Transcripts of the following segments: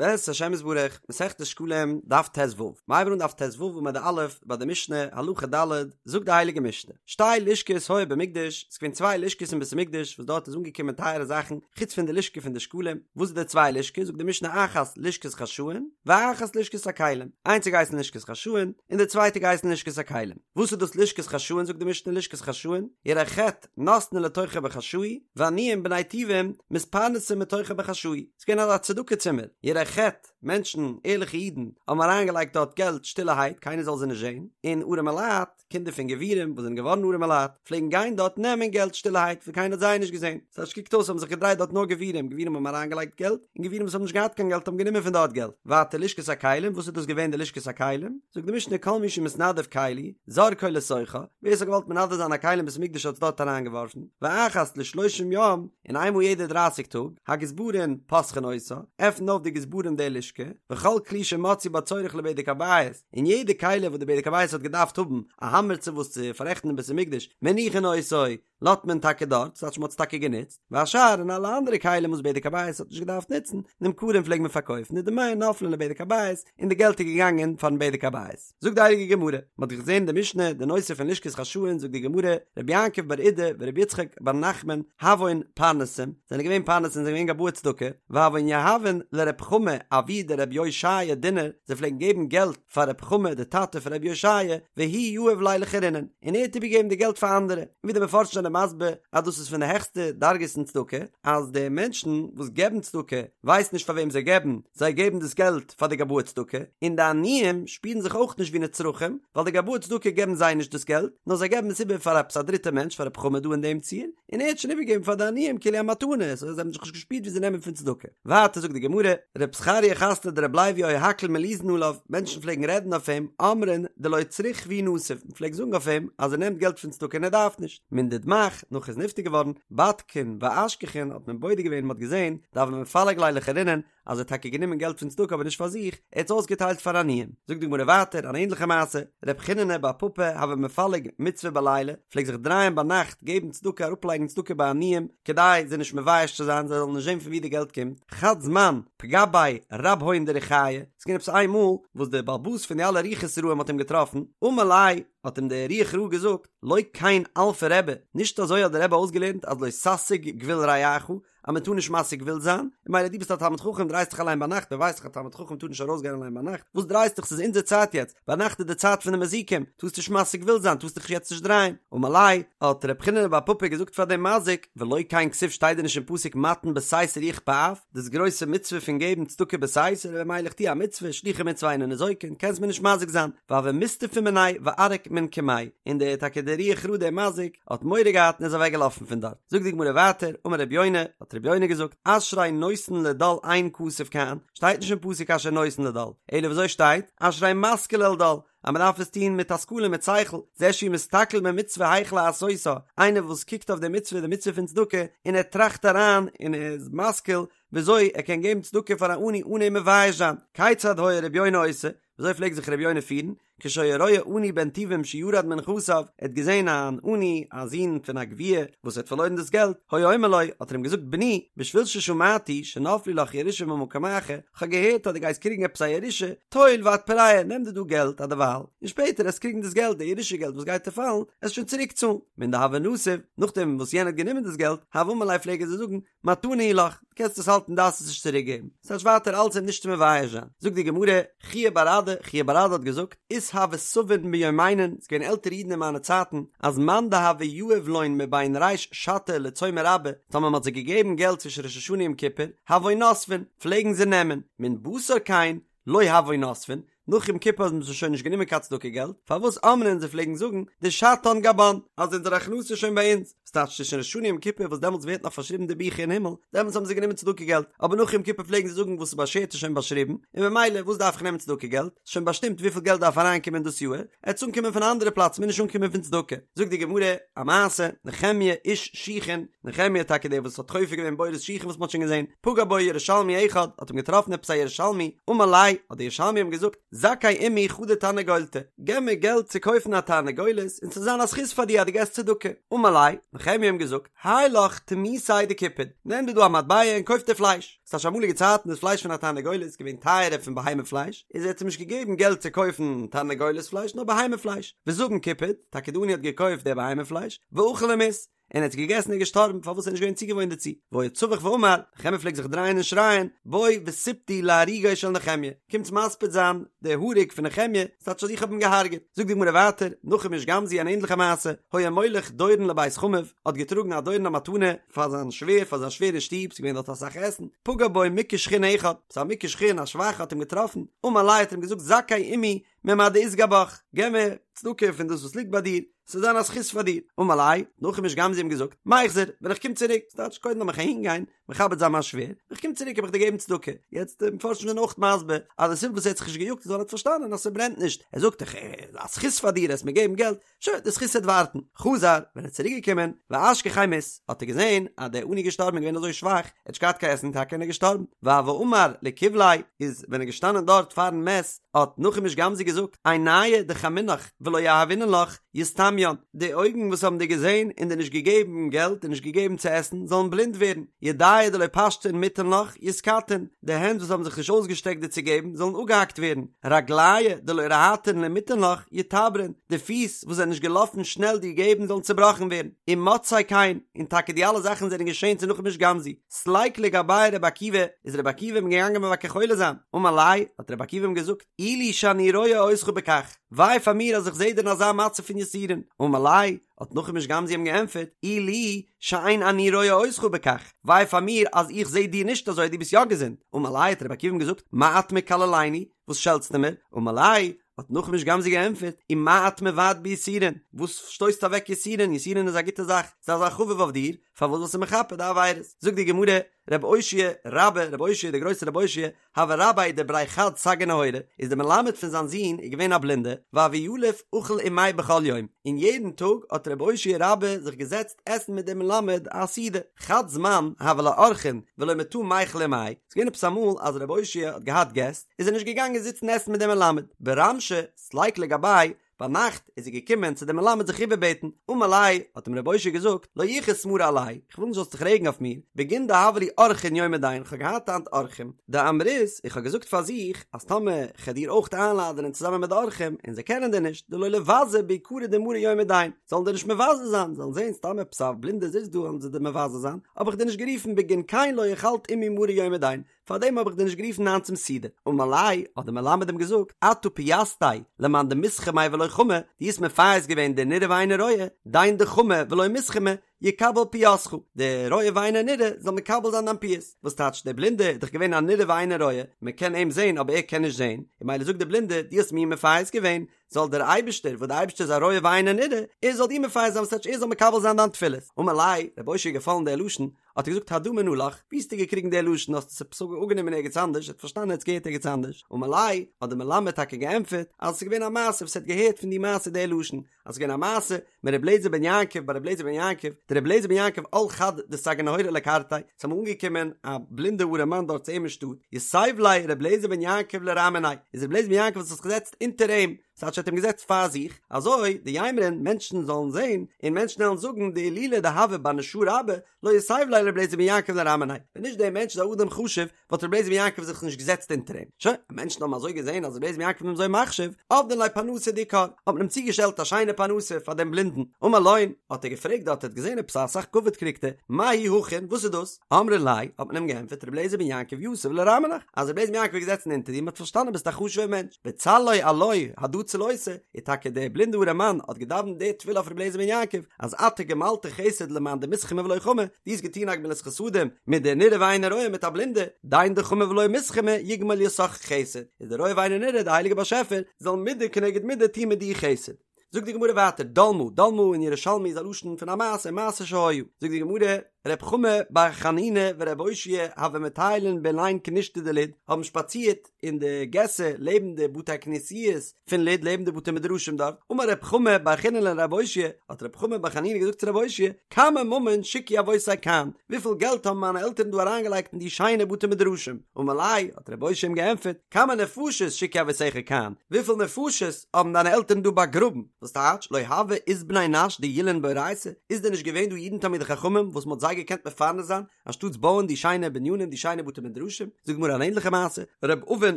בעזרת השם יתברך, מסכת שקלים, דף ט"ו. מ'הייבן אן דף ט"ו עמוד א', ביי די משנה, הלכה ד', זאגט די הייליגע משנה, שתי לשכות היו במקדש, ס'איז געווען צוויי לשכות אין בית המקדש וואס דארט איז אנגעקומען טייערע זאכן, חוץ פון די לשכה פון די שקלים, וואס איז די צוויי לשכות, זאגט די משנה אחת לשכת חשאין, ואחת לשכת הכלים, איינס האט געהייסן לשכת חשאין, און די צווייטע געהייסן לשכת הכלים. וואס איז דאס לשכת חשאין, זאגט די משנה לשכת חשאין, יראי חטא, נותנין לתוכה בחשאי, ועניים בני טובים מתפרנסין מתוכה בחשאי. ס'איז געווען אזא צדקה צימער, יראי חטא, מענטשן, ערליכע אידן, האבן אריינגעלייגט דארט געלט שטילערהייט, קיינער זאל זיי נישט זען, און ארעמעלייט, קינדער פון גבירים וואס זענען געווארן ארעמעלייט, פלעגן גיין דארט נעמען געלט שטילערהייט, וואס קיינער האט זיי נישט געזען. ס'הייסט קוקט אויס האבן זיך געדרייט דארט נאר גבירים, גבירים האבן אריינגעלייגט געלט, און גבירים וואס האבן נישט געהאט קיין געלט האבן גענומען פון דארט געלט. ווייטער לשכת הכלים, וואס איז דאס געווען די לשכת הכלים? זאגט די משנה כל מי שמתנדב כלי, זורקו לתוכה, ווער ס'האט געוואלט מנדב זיין א כלי אין בית המקדש האט עס דארט אריינגעווארפן, ואחת לשלושים יום, און איינמאל יעדע דרייסיג טאג, הגזברין פותחין אותה, עפנט אויף די גזברים די לשכה, וכל כלי שמצאו בה צורך לבדק הבית, און יעדע כלי וואס די בדק הבית האט געדארפט האבן, א האמער צו וואס צו פאררעכטן אין בית המקדש, מניחין אותו, לאזט מען טאקע דארט, ס'טייטש מ'האט עס טאקע גענוצט, והשאר און אלע אנדערע כלים וואס בדק הבית האט נישט געדארפט נוצן, נמכרין פלעג מען פארקויפן, ודמיהן נופלין לבדק הבית, און די געלט איז געגאנגען פארן בדק הבית. זאגט די הייליגע גמרא, מען האט געזען די משנה די נושא פון לשכת חשאין, זאגט די גמרא, רבי יעקב בר אידי ורבי יצחק בר נחמן הוון פרנסים, זענען געווען פרנסים זענען געווען גבאי צדקה, והוון יהבין לרב חמא אבוה דרבי אושעיא דינר, זיי פלעגן געבן געלט פאר רב חמא די טאטע פון רבי אושעיא, והוא יהיב ליה לאחרינן, און ער האט איבערגעגעבן די געלט פאר אנדערע, און ווי די מפרשים זענען מסביר אז דאס איז פון די העכסטע דרגות אין צדקה, אז די מענטשן וואס געבן צדקה ווייסן נישט פאר וועם זיי געבן, זיי געבן דאס געלט פאר די גבאי צדקה, און די עניים שפירן זיך אויך נישט ווי נצרכים, ווייל די גבאי צדקה געבן זיי נישט דאס געלט, נאר זיי געבן עס איבער פאר עפעס א דריטע מענטש, פאר רב חמא דא אין דעם ציור, און ער האט שוין איבערגעגעבן פאר די עניים כאילו א מתנה, סאו זיי האבן זיך נישט געשפירט ווי זיי נעמען פון צדקה. ווייטער זאגט די גמרא, רב זכריה חתניה דרבי לוי היו הכל מליזין עליו, מענטשן פלעגן רעדן אויף אים, אמרין דלא צריך והוא נסיב, מען פלעגט זאגן אויף אים אז ער נעמט געלט פון צדקה און ער דארף נישט. מן דדמך, נאך ער איז נפטר געווארן, בדקין ואשכחין האט מען בודק געווען און מען האט געזען, דהוה מפלג ליה לאחרינן, אז ער האט טאקע גענומען געלט פון צדקה אבער נישט פאר זיך, ער האט עס אויסגעטיילט פאר עניים. זאגט די גמרא ווייטער אן ענדליכע מעשה, רב חיננא בר פפא הוה מפלג מצוה בליליא, פלעגט זיך דרייען ביינאכט געבן צדקה אראפלייגן צדקה ביי עניים, כדי זיי נישט מבייש צו זיין זיי זאלן נישט זען פון ווי די געלט קומט, חד זמן פגע ביה רבהון דרוחיא, ס'איז געווען עפעס איין מאל וואס דער בעל הבית פון די אלע רוחות רעים האט אים געטראפן, אמר ליה, האט אים דער רוח רעה געזאגט, לא כן אלפא רבי, נישט אזוי האט דער רבי אויסגעלערנט אז לא תסיג גבול רעך, אז מען טאר נישט משיג גבול זיין, און ממילא דו ביסט א תלמיד חכם דרייסט דיך אליין ביינאכט, מען ווייסט דאך א תלמיד חכם טאר נישט ארויסגיין אליין ביינאכט, וואס דרייסט דיך ס'איז אונזער צייט יעצט, ביינאכט איז די צייט פון די מזיקים, טארסט נישט משיג גבול זיין, טארסט דיך יעצט נישט דרייען, אמר ליה, האט ר' חיננא בר פפא געזאגט פאר דעם מזיק, ולא כן כתיב שטייט דען נישט אין פסוק מתן בסתר יכפה אף, דאס גרויסע מצוה פון געבן צדקה בסתר, ממילא איך טו א מצוה, שלוחי מצוה אינן ניזוקין, קענסט מיר נישט מזיק זיין, והוה מסתפי מיניה וערק מן קמיה, און דער טאקע דער רוח רעה דער מזיק, האט מורא געהאט און איז אוועק געלאפן פון דארט. זאגט די גמרא ווייטער, אמר רבי יונה, האט רבי יונה געזאגט, אשרי נותן לדל אין כתוב כאן, שטייט נישט אין פסוק אשרי נותן לדל, אלא וויאזוי שטייט, אשרי משכיל אל דל, אז מען דארף עס טון מיט השכלה מיט שכל, זה שהוא מסתכל במצוה היאך לעשותה, איינער וואס קוקט אויף די מצוה, די מצוה פון צדקה, און ער טראכט אריין און ער איז משכיל וויאזוי ער קען געבן צדקה פאר א עני אן אים מבייש זיין, כיצד היה רבי יונה עושה, וויאזוי פלעגט זיך רבי יונה פירן, כשהיה רואה עני בן טובים שירד מנכסיו, ער האט געזען אן עני, א זון פון א גביר, וואס האט פארלוירן דאס געלט, היה אומר לו, האט ער אים געזאגט, בני, בשביל ששמעתי שנפלו לך ירושה ממקום אחר, כ'האב געהערט אז דו גייסט קריגן עפעס א ירושה, טול ואתפרע, נעם דיר דא געלט אדערווייל, און שפעטער עסט קריגן דאס געלט, די ירושה געלט וואס גייט דיר פאלן, עסט שוין צוריק צאלן. מן דהוה נסיב, נאכדעם וואס יענער האט גענומען דאס געלט, הוה אמר ליה פלעג ער זיי זאגן, מתנה היא לך, דו קענסט עס האלטן דארפסט עס נישט צוריק געבן, ס'טייטש ווייטער אלץ אים נישט צו מבייש זיין. זאגט די גמרא, חייא בר אדא, חייא בר אדא האט געזאגט, אית הוו סבין ביומינן, ס'איז געווען עלטערע אידן אין מיינע צייטן, אז מאן דהוה יהיב לון מבין ריש שתא לצומא רבא, טאמער מ'האט זיי געגעבן געלט צווישן ראש השנה יום כיפור, הוו נסבין, פלעגן זיי נעמען, מן בתר כן, לא הוו נסבין, נאך יום כיפור האבן זיי שוין נישט גענומען קיין צדקה געלט, פארוואס אמרין זיי פלעגן זאגן דשתן גבן, אז אונזער הכנסה איז שוין ביי אונז, ס'טייטש צווישן ראש השנה יום כיפור וואס דעמאלטס ווערט נאך פארשריבן די ביכער אין הימל, דעמאלטס האבן זיי גענומען צדקה געלט, אבער נאך יום כיפור פלעגן זיי זאגן וואס איז באשערט איז שוין באשריבן, און ממילא וואס דארף איך נעמען צדקה געלט, ס'איז שוין באשטימט וויפיל געלט דארף אריינקומען דאס יאהר, עט עס אנקומען פון א אנדערע פלאץ מוז נישט אנקומען פון צדקה. זאגט די גמרא א מעשה, נחמיה איש שיחין, נחמיה טאקע דער וואס האט חופר געווען בורות שיחין וואס מ'האט שוין געזען, פגע בו ירושלמי אחד, האט אים געטראפן עפעס א ירושלמי, אמר ליה, האט דער ירושלמי אים געזאגט, זכי עמי חדא תרנגולתא, געב מיר געלט צו קויפן א תרנגולת און ס'זאל זיין א זכות פאר דיר אז דו געסט צדקה. אמר ליה, נחמיה האט אים געזאגט, האי לך תמותיה דקופד, נעם דיר דא א מטבע און קויף דיר פלייש. ס'טייטש אמאליגע צייטן איז פלייש פון א תרנגולת געווען טייערער פון בהמה פלייש, איז ער האט אים נישט געגעבן געלט צו קויפן תרנגולת פלייש נאר בהמה פלייש, וזבין קופד, טאקע די עני האט געקויפט די בהמה פלייש, ואכל ומית, און ער האט עס געגעסן און געשטארבן פארוואס ער איז נישט געווען צוגעוואוינט דערצו, והיה צווח ואמר, נחמיה פלעגט זיך דרייען און שרייען, בואו וספדו להרוגו של נחמיה, קומטס מספיד זיין די הרוג פון נחמיה, ס'טייטש אז איך האב אים געהארגעט. זאגט די גמרא ווייטער, נחום איש גם זו אן ענדליכע מעשה, היה מוליך דורון לבית חמיו, האט געטראגן א דורון א מתנה פאר זיין שווער, פאר זיין שווער אין שטוב, ס'איז געווען דארט אסאך עסן, פגע בו מוכה שחין אחד, ס'איז א מוכה שחין א שוואכע האט אים געטראפן, אמר ליה האט ער אים געזאגט זכי עמי ממה דאית גבך, געב מיר צדקה פון דאס וואס ליגט ביי דיר, ס'זאל זיין א זכות פאר דיר. אמר ליה, נחום איש גם זו האט אים געזאגט, מיחזר, ווען איך קום צוריק, ס'טייטש קודם לאמיך אהין גיין, מכבד זיין מיין שווער, ווען איך קום צוריק וועל איך דיר געבן צדקה. יעצט די מפרשים זענען אויך מסביר אז די סיבה וואס ער האט זיך נישט געיאגט איז ווייל ער האט פארשטאנען אז ס'ברענט נישט, ער זאגט איך א זכות פאר דיר עסט מיר געבן געלט, שוין די זכות וועט ווארטן. חזר, ווען ער איז צוריק געקומען, ואשכחיה מית, האט ער געזען אז דער עני איז געשטארבן און געווען אזוי שוואך, ער האט נישט געהאט קיין עסן טאקע און ער איז געשטארבן. והוה אמר לקבליה, איז ווען ער איז געשטאנען דארט פארן מת, האט נחום איש גם זו געזאגט, עינייהו דחמינך ולא יהבינן לך, יסתמיין, די אויגן וואס האבן דיר געזען און דיר נישט געגעבן געלט און נישט געגעבן צו עסן, זאלן בלינד ווערן, ידייהו דלא פשטן מיתן לך, יתקטעון, די הענט וואס האבן זיך נישט אויסגעשטעקט דיר צו געבן, זאלן אפגעהאקט ווערן, רגלייהו דלא רהטן למיתן לך, יתברון, די פיס וואס זענען נישט געלאפן שנעל דיר געבן, זאלן צעבראכן ווערן, ומצאו כן, און טאקע די אלע זאכן זענען געשען צו נחום איש גם זו. סליק לגביה רבי עקיבא, איז רבי עקיבא אים געגאנגען מבקר חולה זיין, אמר ליה, האט רבי עקיבא אים געזאגט, אי לי שאני רואה אותך בכך, וויי פאר מיר אז איך זע דיר אין אזא מצב פון יסורים, אמר ליה, האט נחום איש גם זו אים געענטפערט, אי לי שאין אני רואה אותך בכך, וויי פאר מיר אז איך זע דיר נישט אזוי, דו ביסט יא געזונט, אמר ליה, האט רבי עקיבא אים געזאגט, מה את מקללני, וואס שעלטסטו מיר, אמר ליה, האט נחום איש גם זו געענטפערט, ומה את מבעט ביסורין, וואס שטויסטו אוועק יסורין, יסורין איז א גוטע זאך, זיי זיי חביב אויף דיר, פארוואס זאלסטו מכפר די עבירות? זאגט די גמרא, רב אושעיא רבה, רב אושעיא דער גרויסער רב אושעיא, הוה רביה דבריה חד סגי נהורא, איז דער מלמד פון זיין זון איז געווען א בלינדע, והוה יליף אכיל עמיה בכל יום, און יעדן טאג האט רב אושעיא רבה זיך געזעצט עסן מיט דעם מלמד א סעודה, חד זמן הוו ליה אורחין ולא מטא מיכל עמיה, ס'איז געווען עפעס אמאל אז רב אושעיא האט געהאט געסט, איז ער נישט געגאנגען זיצן עסן מיט דעם מלמד, ברמשא סליק לגביה, ביינאכט איז ער געקומען צו דעם מלמד זיך איבערבעטן, אמר ליה, האט אים רב אושעיא געזאגט, לא יכעוס מרי עלי, איך וויל נישט זאלסט זיך רעגן אויף מיר, בגין דהוו לי אורחין יומא דין, איך האב געהאט היינט אורחים, דאמרית, איך האב געזאגט פאר זיך, אז טאמער כ'על דיר אויך איינלאדענען צוזאמען מיט די אורחים, און זיי קענען דיר נישט, דלא ליבזו ביקרא דמרי יומא דין, זאלן דיר נישט מבזה זיין, זאלן זען סתם עפעס א בלינדער זיצט דא וועלן זיי דיר מבזה זיין, האב איך דיר נישט גערופן בגין כן לא אכלת עמי מרור יומא דין, פארדעם האב איך דיר נישט גערופן היינט צום סעודה. אמר ליה, האט דער מלמד אים געזאגט, אתה פייסתיה למאן דמסכמי ולא חמי, דו האסט מפייס געווען די נראה ואינו רואה, דין דחמי ולא מסכמי, יקבל פיוסך, די רואה ואינו נראה זאל מקבל זיין דיין פיוס. וואס טייטש, דער בלינדער איז דאך געווען א נראה ואינו רואה, מען קען אים זען אבער ער קען נישט זען, און ממילא זאגט דער בלינדער, דו האסט מיר מפייס געווען, זאל דער אייבערשטער, וואס דער אייבערשטער איז א רואה ואינו נראה, ער זאל דיר מפייס זיין, וואס טייטש ער זאל מקבל זיין דיין תפילות. אמר ליה, רב אושעיא איז געפאלן דער לשון, האט ער געזאגט הדא מנא לך, ווי האסטו געקריגן די לשון, האסט עס עפעס אפגענומען ערגעץ אנדערש, ער האט פארשטאנען ער האט עס געהערט ערגעץ אנדערש, אמר ליה, האט דער מלמד טאקע געענטפערט, אז עס איז געווען א מעשה וואס ער האט געהערט פון די מעשה די לשון, אז עס איז געווען א מעשה מר' אליעזר בן יעקב ביי ר' אליעזר בן יעקב, דר' אליעזר בן יעקב על חד דסגי נהורא לקרתיה, עס איז אמאל אנגעקומען א בלינדע ארעמאן דארט צו אים אין שטאט, יתיב ליה ר' אליעזר בן יעקב לרע מיניה, איז ר' אליעזר בן יעקב האט זיך געזעצט אונטער אים, ס'טייטש ער האט אים געזעצט פאר זיך, אזוי דיימרון מענטשן זאלן זען, און מענטשן וועלן זאגן דאילולא דהוה בר נשא רבה, לא יתיב ליה ר' אליעזר בן יעקב לרע מיניה, ווען נישט דער מענטש איז א אדם חשוב, וואלט ר' אליעזר בן יעקב זיך נישט געזעצט אונטער אים. שוין, מענטשן האבן אזוי געזען אז ר' אליעזר בן יעקב איז אים אזוי מחשיב, עבדין ליה פרנסה דאיכר, האט מען אים צוגעשטעלט א שיינע פרנסה פאר דעם בלינדן. אמר לון, האט ער געפרעגט דארט, ער האט געזען עפעס אסאך כבוד קריגט ער, מהו הכין, וואס איז דאס? אמרי ליה, האט מען אים געענטפערט, ר' אליעזר בן יעקב יתיב לרע מינך, אז ר' אליעזר בן יעקב איז געזעצן אונטער דיר, מען האט פארשטאנען ביסט א חשוב'ער מענטש, וצלי עילויה הדא צלותא, איז טאקע דער בלינדע ארעמאן האט געדאווענט די תפילה אויף ר' אליעזר בן יעקב, אז אתה גמלת חסד למאן דמסכמי ולא חמי, דו האסט געטון א גמילת חסדים מיט די נראה ואינו רואה מיט א בלינדע, דין דחמי ולא מסכמי יגמול יתך חסד, איז די רואה ואינו נראה די הייליגע באשעפער זאל מידה כנגד מידה טון מיט דיר חסד. זאגט די גמרא ווייטער, דלמא, דלמא אין ירושלמי איז א לשון פון א מעשה, מעשה שהיה, זאגט די גמרא, ר' חמא בר חנינא ור' אושעיא הוו מטיילין באילין כנישתא דלוד, האבן שפאצירט אין די געסער לעבן די בתי כנסיות פון לוד לעבן די בתי מדרשים דארט, אמר ר' חמא בר חנינא לר' אושעיא, האט ר' חמא בר חנינא געזאגט צו ר' אושעיא, כמה ממון שיקעו אבותי כאן, וויפיל געלט האבן מיינע עלטערן דא אריינגעלייגט אין די שיינע בתי מדרשים? אמר ליה, האט ר' אושעיא אים געענטפערט, כמה נפשות שיקעו אבותיך כאן, וויפיל נפשות האבן דיינע עלטערן דא באגראבן? וואס טייטש, לא הוה אית בני נש דילין באורייתא, איז דען נישט געווען דא אידן תלמידי חכמים וואס מ'האט זיי געקענט מפרנס זיין, אנשטאטס בויען די שיינע בנינים די שיינע בתי מדרשים? זאגט די גמרא אן ענליכע מעשה, ר' אבין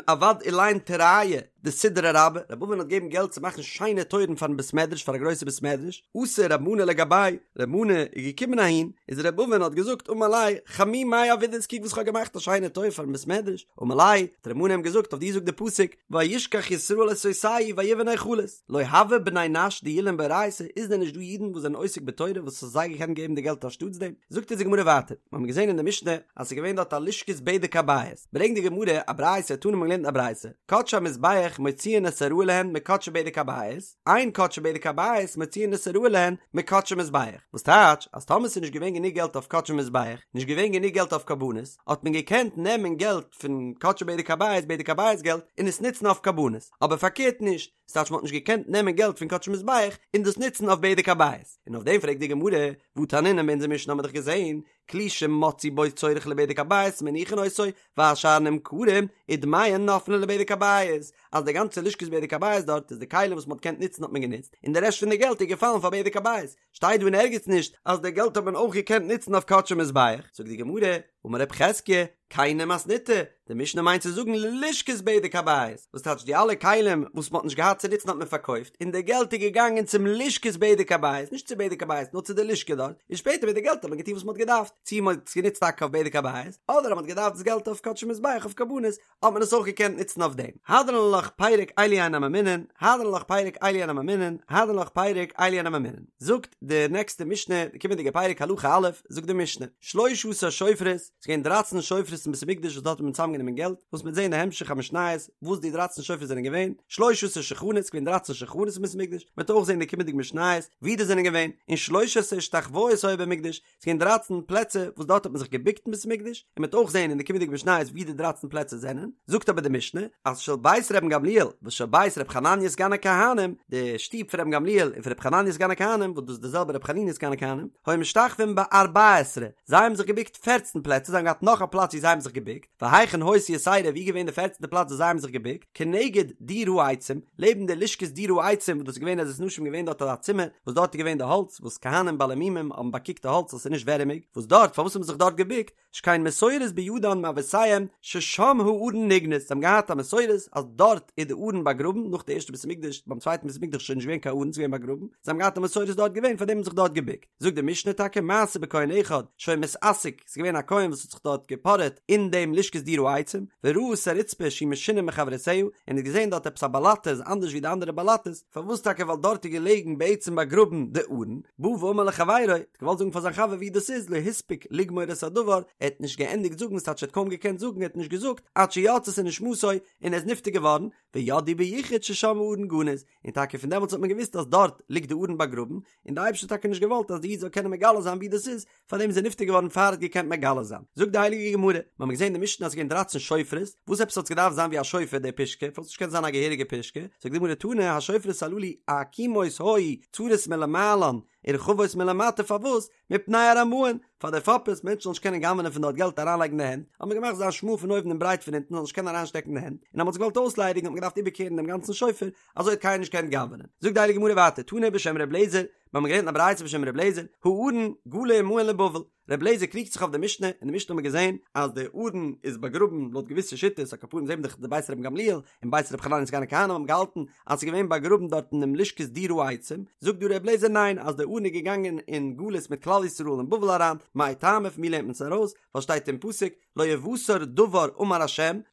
עבד אילין תורייא דסודרא רבה, ר' אבין האט געגעבן געלט צו מאכן שיינע טויערן פארן בית מדרש פאר א גרויסע בית מדרש, אתא ר' מנא לגביה, ר' מנא איז געקומען אהין, איז ר' אבין האט געזאגט אמר ליה חמי מאי עבידת קוק וואס כ'האב געמאכט א שיינע טויער פארן בית מדרש, אמר ליה האט ר' מנא אים געזאגט אויף דיר זאגט די פסוק וישכח ישראל את עושהו ויבן היכלות, לא הוה בני נש דילין באורייתא, איז דען נישט דא אידן וואס זענען עוסק בתורה וואס האסט זיי געקענט געבן די געלט אנשטאטס דעם? זאגט אונז די גמרא ווייטער, מיר האבן געזען אין די משנה אז ס'איז געווען דארט א לשכת בדק הבית, ברענגט די גמרא א ברייתא, תנא מ'האט געלערנט א ברייתא, קדשי המזבח מוציאין את הראוי להן מקדשי בדק הבית, אין קדשי בדק הבית מוציאין את הראוי להן מקדשי מזבח, וואס טייטש אז טאמער ס'איז נישט געווען גענוג געלט אויף קדשי מזבח, נישט געווען גענוג געלט אויף קרבנות, האט מען געקענט נעמען געלט פון קדשי בדק הבית, בדק הבית געלט, און עס נוצן אויף קרבנות, אבער פארקערט נישט, ס'טייטש מ'האט נישט געקענט נעמען געלט פון קדשי מזבח און דאס נוצן אויף בדק הבית, און אויף דעם פרעגט די גמרא, והא תנינן אין אונזער משנה האמיר דאך געזען, כלי שמצאו בו צורך לבדק הבית מניחין אותו, והשאר נמכרים, ודמיהן נופלין לבדק הבית, אז די גאנצע לשכת בדק הבית דארט איז די כלים וואס מ'האט געקענט נוצן האט מען גענוצט, און די רעשט פון די געלט איז געפאלן פאר בדק הבית, שטייט דא אין ערגעץ נישט אז די געלט האט מען אויך געקענט נוצן אויף קדשי מזבח, זאגט די גמרא, אמר רב חזקיה, כיני מתניתא, די משנה מיינט צו זאגן ללשכת בדק הבית, וואס טייטש די אלע כלים וואס מען האט נישט געהאט צו נוצן האט מען פארקויפט, און די געלט איז געגאנגען צום לשכת בדק הבית, נישט צו בדק הבית נאר צו די לשכה דארט, און שפעטער מיט די געלט האט מען געטון וואס מען האט געדארפט, צו מען האט עס גענוצט טאקע אויף בדק הבית, אדער אז מען האט געדארפט דאס געלט אויף קדשי מזבח אויף קרבנות, האט מען עס אויך געקענט נוצן אויף דעם. הדרן עלך פרק אלו הן הממונין, הדרן עלך פרק אלו הן הממונין, הדרן עלך פרק אלו הן הממונין. זאגט די נעקסטע משנה, די קומענדיגע פרק הלכה א', זאגט די משנה, שלשה עשר שופרות, ס'איז געווען דרייצן שופרות אין בית המקדש וואס דארט האט מען צוזאמגענומען געלט, וואס מ'וועט זען אין די המשך המשניות וואס די דרייצן שופרות זענען געווען, שלשה עשר שולחנות, ס'איז געווען דרייצן שולחנות אין בית המקדש, מ'וועט אויך זען אין די קומענדיגע משניות ווי די זענען געווען, און שלש עשרה השתחוואות היו במקדש, ס'איז געווען דרייצן פלעצער וואס דארט האט מען זיך געבוקט אין בית המקדש, און מ'וועט אויך זען אין די קומענדיגע משניות ווי די דרייצן פלעצער זענען, זאגט אבער די משנה אז של בית רבן גמליאל ושל בית ר' חנניה סגן הכהנים, די שטוב פון רבן גמליאל און פון ר' חנניה סגן הכהנים, וואס דאס איז די זעלבע ר' חנינא סגן הכהנים, היו משתחווים בארבע עשרה, זיי האבן זיך געבוקט פערצן פלעצער, זיי האבן געהאט נאך א פלאץ ווי זיי האבן זיך געבוקט, והיכן היתה יתירה ווי איז געווען די פערצנטע פלאץ וואס זיי האבן זיך געבוקט, כנגד דיר העצים, לעבן די לשכת דיר העצים וואס דאס איז געווען עזרת נשים געווען דארט אזא צימער וואס דארט איז געווען די האלץ וואס כהנים בעלי מומים האבן באקוקט די האלץ אז ס'איז נישט ווערעמיג, וואס דארט פארוואס האבן זיך דארט געבוקט, שכן מסורת בידן מאבותיהם ששם הארון נגנז, זיי האבן געהאט א מסורת אז דארט איז די ארון באגראבן, נאך די ערשטע בית המקדש, ביים צווייטן בית המקדש איז שוין נישט געווען קיין ארון ס'איז געווען באגראבן, זיי האבן געהאט א מסורת דארט געווען פארדעם האבן זיך דארט געבוקט. זאגט די משנה טאקע מעשה בכהן אחד שהיה מתעסק, ס'איז געווען א כהן וואס האט זיך דארט געפארעט אין דעם לשכת דיר העצים, וראה את הרצפה שהיא משונה מחברותיה, און האט געזען דארט עפעס א באלאטע איז אנדערש ווי די אנדערע באלאטעס, פארוואס טאקע ווייל דארט איז געלעגן בעצם באגראבן די ארון, בא ואמר לחבירו, האט געוואלט זאגן פאר זיין חבר ווי דאס איז, לא הספיק לגמור את הדבר, ער האט נישט געענדיגט זאגן, ס'טייטש ער האט קוים געקענט זאגן, ער האט נישט געזאגט, עד שיצתה נשמתו, און ער איז נפטר געווארן, וידעו ביחוד ששם הארון גנוז, און טאקע פון דעמאלטס האט מען געוואוסט אז דארט ליגט די ארון באגראבן, און די אייבערשטער האט טאקע נישט געוואלט אז די איד זאל קענען מגלה זיין ווי דאס איז, פארדעם איז ער נפטר געווארן פאר ער האט געקענט מגלה זיין. זאגט די הייליגע גמרא, מיר האבן געזען אין די משנה אז עס איז געווען דרייצן שופרות, וואס עפעס האט עס געדארפט זיין ווי א שופר די פושקע, פארוואס נישט געקענט זיין א געהעריגע פושקע, זאגט די גמרא תנא השופרות הללו עקומות היו צרות מלמעלן ורחבות מלמטה פארוואס? מפני הרמאין, פאר די פאפערס, מענטשן זאלן נישט קענען גנב'נען פון דארט געלט אריינלייגן די הענט, האט מען געמאכט זיין שמאל פון אויבן און ברייט פון אונטן זאל נישט קענען אריינשטעקן די הענט, און אז מען האט זיך געוואלט אויסליידיגן האט מען געדארפט איבערקערן דעם גאנצן שופר, אזוי האט קיינער נישט געקענט גנב'נען. זאגט די הייליגע גמרא ווייטער, תנא בשם ר' לעזער, מיר האבן געלערנט א ברייתא בשם ר' לעזער, הארון גלה עמהן לבבל, ר' לעזער קריגט זיך אויף די משנה, אין די משנה האט מען געזען אז די ארון איז באגראבן לויט געוויסע שיטות, על כל פנים זעהן מיר דאך די בית רבן גמליאל און בית רבי חנניה סגן הכהנים האבן געהאלטן אז ס'איז געווען באגראבן דארט אינעם לשכת דיר העצים, זאגט דא ר' לעזער ניין אז די ארון איז געגאנגען אין גלות מיט כלל ישראל אין בבל אריין, מאי טעמא פון ווי לערנט מען עס ארויס, ווייל שטייט אין פסוק לא יותר דבר אמר ה'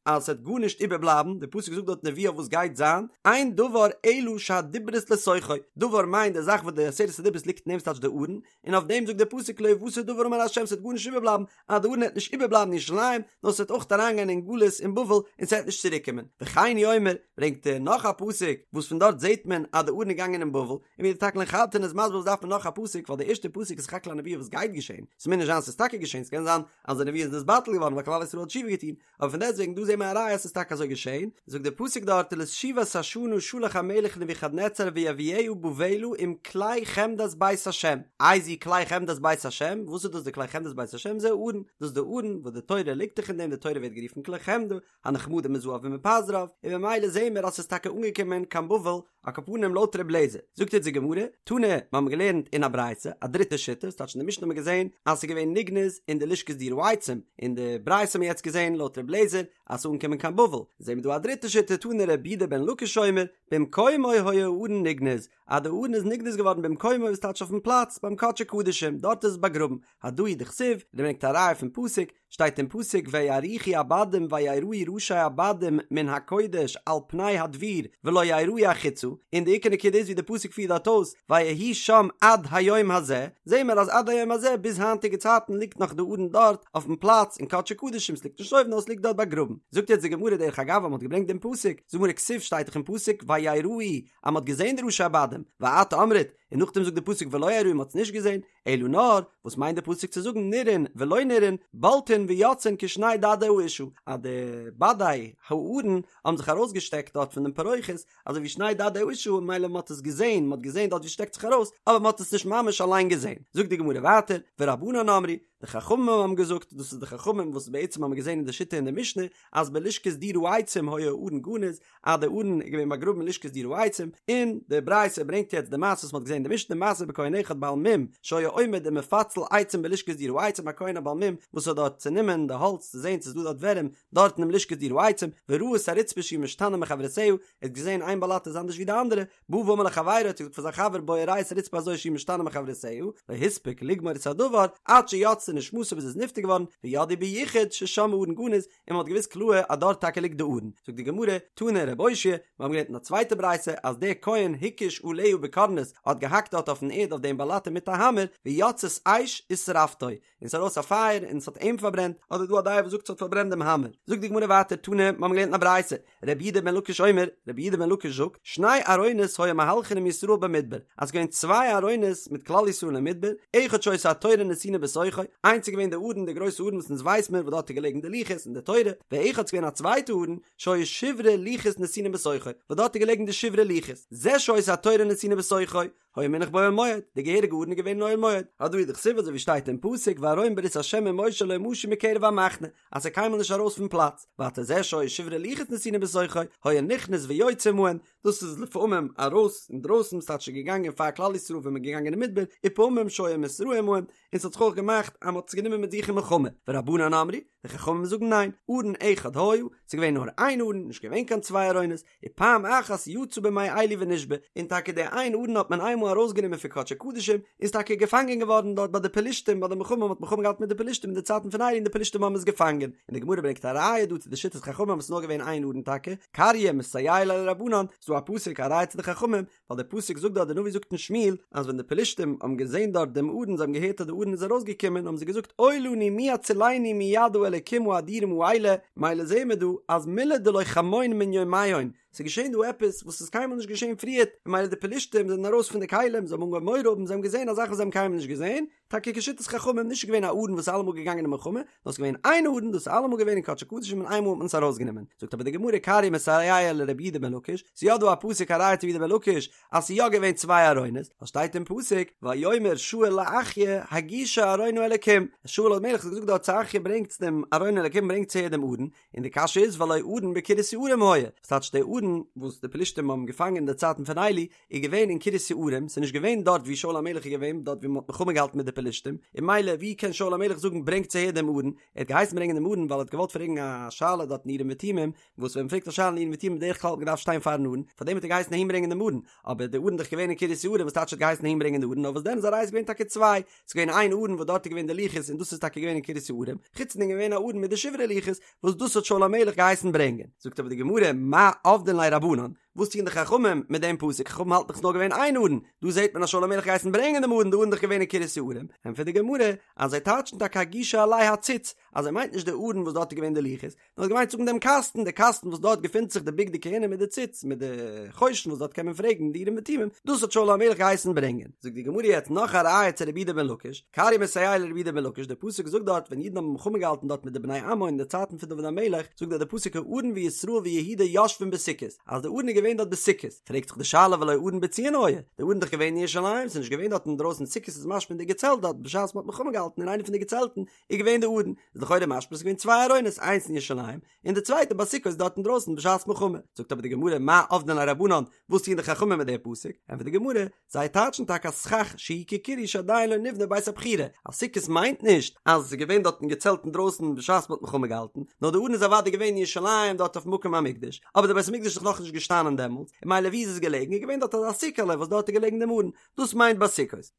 אז ס'וועט גארנישט איבערבלייבן, די פסוק זאגט דארט נבואה וואס גייט זיין, אין דבר אלא שהדיברות לתוכו, דבר מיינט די זאך וואס די עשרת הדיברות ליגט אין אים ס'טייטש די ארון, און אויף דעם זאגט דער פסוק לא יותר דבר אמר ה'. אמר ה' ס'וועט גארנישט איבערבלייבן, אז די ארון העט נישט איבערבלייבן אין ירושלים, נאר ס'וועט אויך אריינגיין אין גלות אין בבל און ס'וועט נישט צוריקקומען. וכן הוא אומר, ברענגט ער נאך א פסוק וואס פון דארט זעט מען אז די ארון איז געגאנגען אין בבל, און ווי די תקלין חדתין איז מסביר וואס דארף מען נאך א פסוק ווייל די ערשטע פסוק איז סך הכל א נבואה וואס גייט געשען, ס'מוז נישט זיין ס'איז טאקע געשען, ס'קען זיין אז די נבואה איז נתבטל געווארן ווייל כלל ישראל האט תשובה געטון, אבער פון דעסטוועגן דא זעהן מיר א ראיה אז ס'איז טאקע אזוי געשעהן, זאגט דער פסוק דארט ולתשובת השנה שלח המלך נבוכדנצר ויביאה בבלה עם כלי חמדת בית השם, איזהו כלי חמדת בית השם, וואס איז דאס די כלי חמדת בית השם, זה הארון, דאס איז די ארון וואס די תורה ליגט דאך אין דעם, די תורה ווערט גערופן כלי חמדה, הנחמדים מזהב ומפז רב, און ממילא זעהן מיר אז ס'איז טאקע אנגעקומען קיין בבל, על כל פנים לויט ר' לעזער, זאגט יעצט די גמרא, תנא, מיר האבן געלערנט אין א ברייתא, א דריטע שיטה, ס'טייטש אין די משנה האבן מיר געזען אז ס'איז געווען נגנז אין די לשכת דיר העצים, אין די ברייתא האבן מיר יעצט געזען לויט ר' לעזער אז ס'איז אנגעקומען קיין בבל, זעהן מיר דא א דריטע שיטה, תנא רבי יהודה בן לקיש אומר, במקומו היה הארון נגנז, אז די ארון איז נגנז געווארן במקומו וואס טייטש אויפן פלאץ ביים קדשי קדשים, דארט איז עס באגראבן, הדא הוא דכתיב, ער ברענגט א ראיה פון פסוק, שטייט אין פסוק ויאריכו הבדים ויראו ראשי הבדים מן הקודש על פני הדביר ולא יראו החוצה, און די עיקר נקודה איז ווי די פסוק פירט דארט אויס ויהי שם עד היום הזה, זעהן מיר אז עד היום הזה ביז היינטיגע צייטן ליגט נאך די ארון דארט אויפן פלאץ אין קדשי קדשים ס'ליגט נישט אויבן נאר ס'ליגט דארט באגראבן, זאגט יעצט די גמרא דרך אגב אז מ'האט געברענגט דעם פסוק, זאגט די גמרא כתיב שטייט דאך אין פסוק ויראו אז מ'האט געזעהן די ראשי הבדים, ואת אמרת, און נאכדעם זאגט די פסוק ולא יראו מ'האט עס נישט געזעהן, אלא נאר, וואס מיינט די פסוק צו זאגן נראין ולא נראין, בולטין ויוצאין כשני דדי האשה, אז די בדי הארון האבן זיך ארויסגעשטעקט דארט פון דעם פרוכת, אזוי ווי שני דדי האשה, ממילא מען האט עס געזען, מען האט געזען דארט ווי עס שטעקט זיך ארויס, אבער מען האט עס נישט ממש אליין געזען. זאגט די גמרא ווייטער, ורבנן אמרי, די חכמים האבן געזאגט, דאס איז די חכמים וואס בעצם האבן געזען אין די שיטה אין די משנה, אז בלשכת דיר העצים היה הארון גנוז, אז די ארון איז געווען באגראבן אין לשכת דיר העצים, און די ברייתא ברענגט יעצט די מעשה וואס מען האט געזען אין די משנה, מעשה בכהן אחד בעל מום שהיה עומד ומפצל עצים בלשכת דיר העצים, א כהן א בעל מום וואס האט דארט צענומען די האלץ צו זען צו ס'איז דא דארט ווערים דארט אינעם לשכת דיר העצים, וראה את הרצפה שהיא משתנה מחברותיה, ער האט געזען איין באלאטע איז אנדערש ווי די אנדערע, בא ואמר לחבירו האט ער געזאגט פאר זיין חבר בוא וראה את הרצפה הזו שהיא משתנה מחברותיה, לא הספיק לגמור את הדבר עד שיצתה נשמתו ביז ער איז נפטר געווארן, וידעו ביחוד ששם הארון גנוז, און מען האט געוואוסט קלאהר אז דארט טאקע ליגט די ארון. זאגט די גמרא, תנא רב אושעיא, מיר האבן געלערנט אין א צווייטע ברייתא אז דער כהן הקיש עליה בקורנס האט געהאקט דארט אויפן ערד אויף דעם באלאטע מיט א האמער, ויצאת אש ושרפתו, און ס'איז ארויס א פייער און ס'האט אים פארברענט, אדער דא א דעה וואס זאגט ס'האט פארברענט דעם האמער. זאגט די גמרא ווייטער, תנא, מיר האבן געלערנט אין א ברייתא, רבי יהודה בן לקיש אומר, רבי יהודה בן לקיש זאגט, שני ארונות היו מהלכין עם ישראל במדבר, אז ס'געווען צוויי ארונות מיט כלל ישראל אין מדבר, אחד שהיתה התורה נתונה בתוכו, איינס איז געווען די ארון, די גרויסע ארון וואס אונז ווייס מיר וואס דארט איז געלעגן די לוחות און די תורה, ואחד ס'געווען א צווייטע ארון, שהיו שברי לוחות נתונים בתוכו, וואס דארט איז געלעגן די שברי לוחות, זה שהיתה התורה נתונה בתוכו, היה מונח באוהל מועד, די געהעריגע ארון איז געווען אין אוהל מועד, הדא הוא דכתיב אזוי ווי שטייט אין פסוק וארון ברית ה' ומשה לא משו מקרב המחנה, אז ס'איז קיינמאל נישט ארויס פון פלאץ, ווייטער זה שהיו שברי לוחות נתונים בתוכו, היה נכנס ויוצא עמהן, דאס איז לפעמים ארויס אינדרויסן ס'טייטש ס'איז געגאנגען פאר כלל ישראל ווען מ'איז געגאנגען אין מדבר, ופעמים שהיה מתראה עמהן, און ס'האט זיך אויך געמאכט אז מ'האט עס גענומען מיט זיך אין מלחמה, ורבנן אמרי, די חכמים זאגן ניין, ארון אחד היה, ס'איז געווען נאר איין ארון, נישט געווען קיין צוויי ארונות, ופעם אחת יצא בימי עלי ונשבה, און טאקע די איין ארון האט מען איינמאל ארויסגענומען פון קדשי קדשים, און איז טאקע געפאנגען געווארן דארט ביי די פלישתים ביי די מלחמה, מען האט מלחמה געהאט מיט די פלישתים אין די צייטן פון עלי און די פלישתים האבן עס געפאנגען, און די גמרא ברענגט א ראיה דא צו די שיטת חכמים אז ס'איז נאר געווען איין ארון טאקע, קרייא מסייע ליה לרבנן, ס'איז דא א פסוק א ראיה צו די חכמים, ווייל דער פסוק זאגט דארט, דער נביא זאגט אין שמואל, אז ווען די פלישתים האבן געזען דארט דעם ארון, זיי האבן געהערט אז די ארון איז ארויסגעקומען, האבן זיי געזאגט, אוי לנו מי יצילנו מיד האלקים האדירים האלה, מילא זעהן מיר דא אז מילי דלא כמון מן יומיהון, ס'איז געשען דא עפעס וואס איז קיינמאל נישט געשען פריערט, און מילא די פלישתים זענען ארויס פון די כלים, זיי האבן אנגעהויבן מורא האבן, זיי האבן געזען א זאך וואס זיי האבן קיינמאל נישט געזען, טאקע כשיטת חכמים נישט געווען א ארון וואס איז אלעמאל געגאנגען אין מלחמה, נאר ס'איז געווען איין ארון דאס איז אלעמאל געווען אין קדשי קדשים און איינמאל האט מען עס ארויסגענומען. זאגט אבער די גמרא קרייא מסייע לרבי יהודה בן לקיש, ס'איז יא דא א פסוק א ראיה צו רבי יהודה בן לקיש אז ס'איז יא געווען צוויי ארונות, ווייל שטייט אין פסוק ויאמר שאול לאחיה הגישה ארון האלקים, שאול המלך האט געזאגט דארט צו אחיה ברענגטס דעם ארון האלקים ברענגטס אהער דעם ארון, און די קשיא איז והלא ארון בקרית יערים היה, וואס טייטש די ארון וואס די פלישתים האבן געפאנגען אין די צייטן פון עלי איז געווען אין קרית יערים, ס'איז נישט געווען דארט ווי שאול המלך איז געווען, דארט ווי מ'האט מלחמה געהאלטן מיט די פלישתים, און מילא ווי קען שאול המלך זאגן ברענגטס אהער דעם ארון, ער האט געהייסן ברענגען דעם ארון ווייל ער האט געוואלט פרעגן א שאלה דארט אין אורים ותומים, וואס ווען מ'פרעגט א שאלה אין אורים ותומים בדרך כלל האט מען געדארפט שטיין פארן ארון, פארדעם האט ער געהייסן אהין ברענגען דעם ארון, אבער די ארון איז דאך געווען אין קרית יערים וואס טייטש ער האט געהייסן אהין ברענגען די ארון, נאר וואס דען איז א ראיה ס'איז געווען טאקע צוויי, ס'איז געווען איין ארון וואס דארט איז געווען די לוחות און דאס איז טאקע געווען אין קרית יערים, חוץ דעם איז געווען א ארון מיט די שברי לוחות וואס דאס האט שאול המלך געהייסן ברענגען. זאגט אבער די גמרא, מאי עבדין ליה רבנן? וואס טוען די חכמים מיט דעם פסוק? חכמים האלטן דאך ס'איז נאר געווען איין ארון, דא זעט מען אז שאול המלך געהייסן ברענגען דעם ארון, די ארון איז דאך געווען אין קרית יערים, ענטפערט די גמרא אז זיי טייטשן טאקע הגישה אלי הציץ, אז ער מיינט נישט די ארון וואס דארט איז געווען די לוחות, נאר האט געמיינט זאגן דעם קאסטן, די קאסטן וואס דארט געפינט זיך די בגדי כהונה מיט די ציץ, מיט די חושן וואס דארט קען מען פרעגן די אורים ותומים, דאס האט שאול המלך געהייסן ברענגען. זאגט די גמרא יעצט נאך א ראיה צו רבי יהודה בן לקיש, קרי מסייע לרבי יהודה בן לקיש, דער פסוק זאגט דארט ווען אידן האבן מלחמה געהאלטן דארט מיט די בני עמון אין די צייטן פון דוד המלך, זאגט דארט דער פסוק הארון וישראל ויהודה יושבים בסוכות, אז די ארון איז געווען דארט בסוכות, פרעגט זיך די שאלה והלא ארון בציון היה, די ארון איז דאך געווען אין ירושלים, ס'איז נישט געווען דארט אינדרויסן, סוכות איז משמע אין די געצעלט דארט בשעת מ'האט מלחמה געהאלטן אין איינע פון די געצעלטן, איז געווען די ארון, איז לכאורה משמע ס'איז געווען צוויי ארונות איינס אין ירושלים און די צווייטע בסוכות דארט אינדרויסן בשעת מלחמה, זאגט אבער די גמרא מאי עבדין ליה רבנן, וואס טוען די חכמים מיט די פסוק, ענטפערט די גמרא, זיי טייטשן טאקע אז סכך שהוא כקירוי שעדיין לא נבנה בית הבחירה, אז סוכות מיינט נישט אז עס איז געווען דארט אין געצעלט אינדרויסן בשעת מ'האט מלחמה געהאלטן, נאר די ארון איז אוודאי געווען אין ירושלים דארט אויף מקום המקדש, אבער די בית המקדש איז דאך נאכנישט געשטאנען דעמאלטס, און ממילא ווי איז עס געלעגן, איז געווען דארט אזא סוכה'לע וואס דארט איז געלעגן דעם ארון, דאס מיינט בסוכות.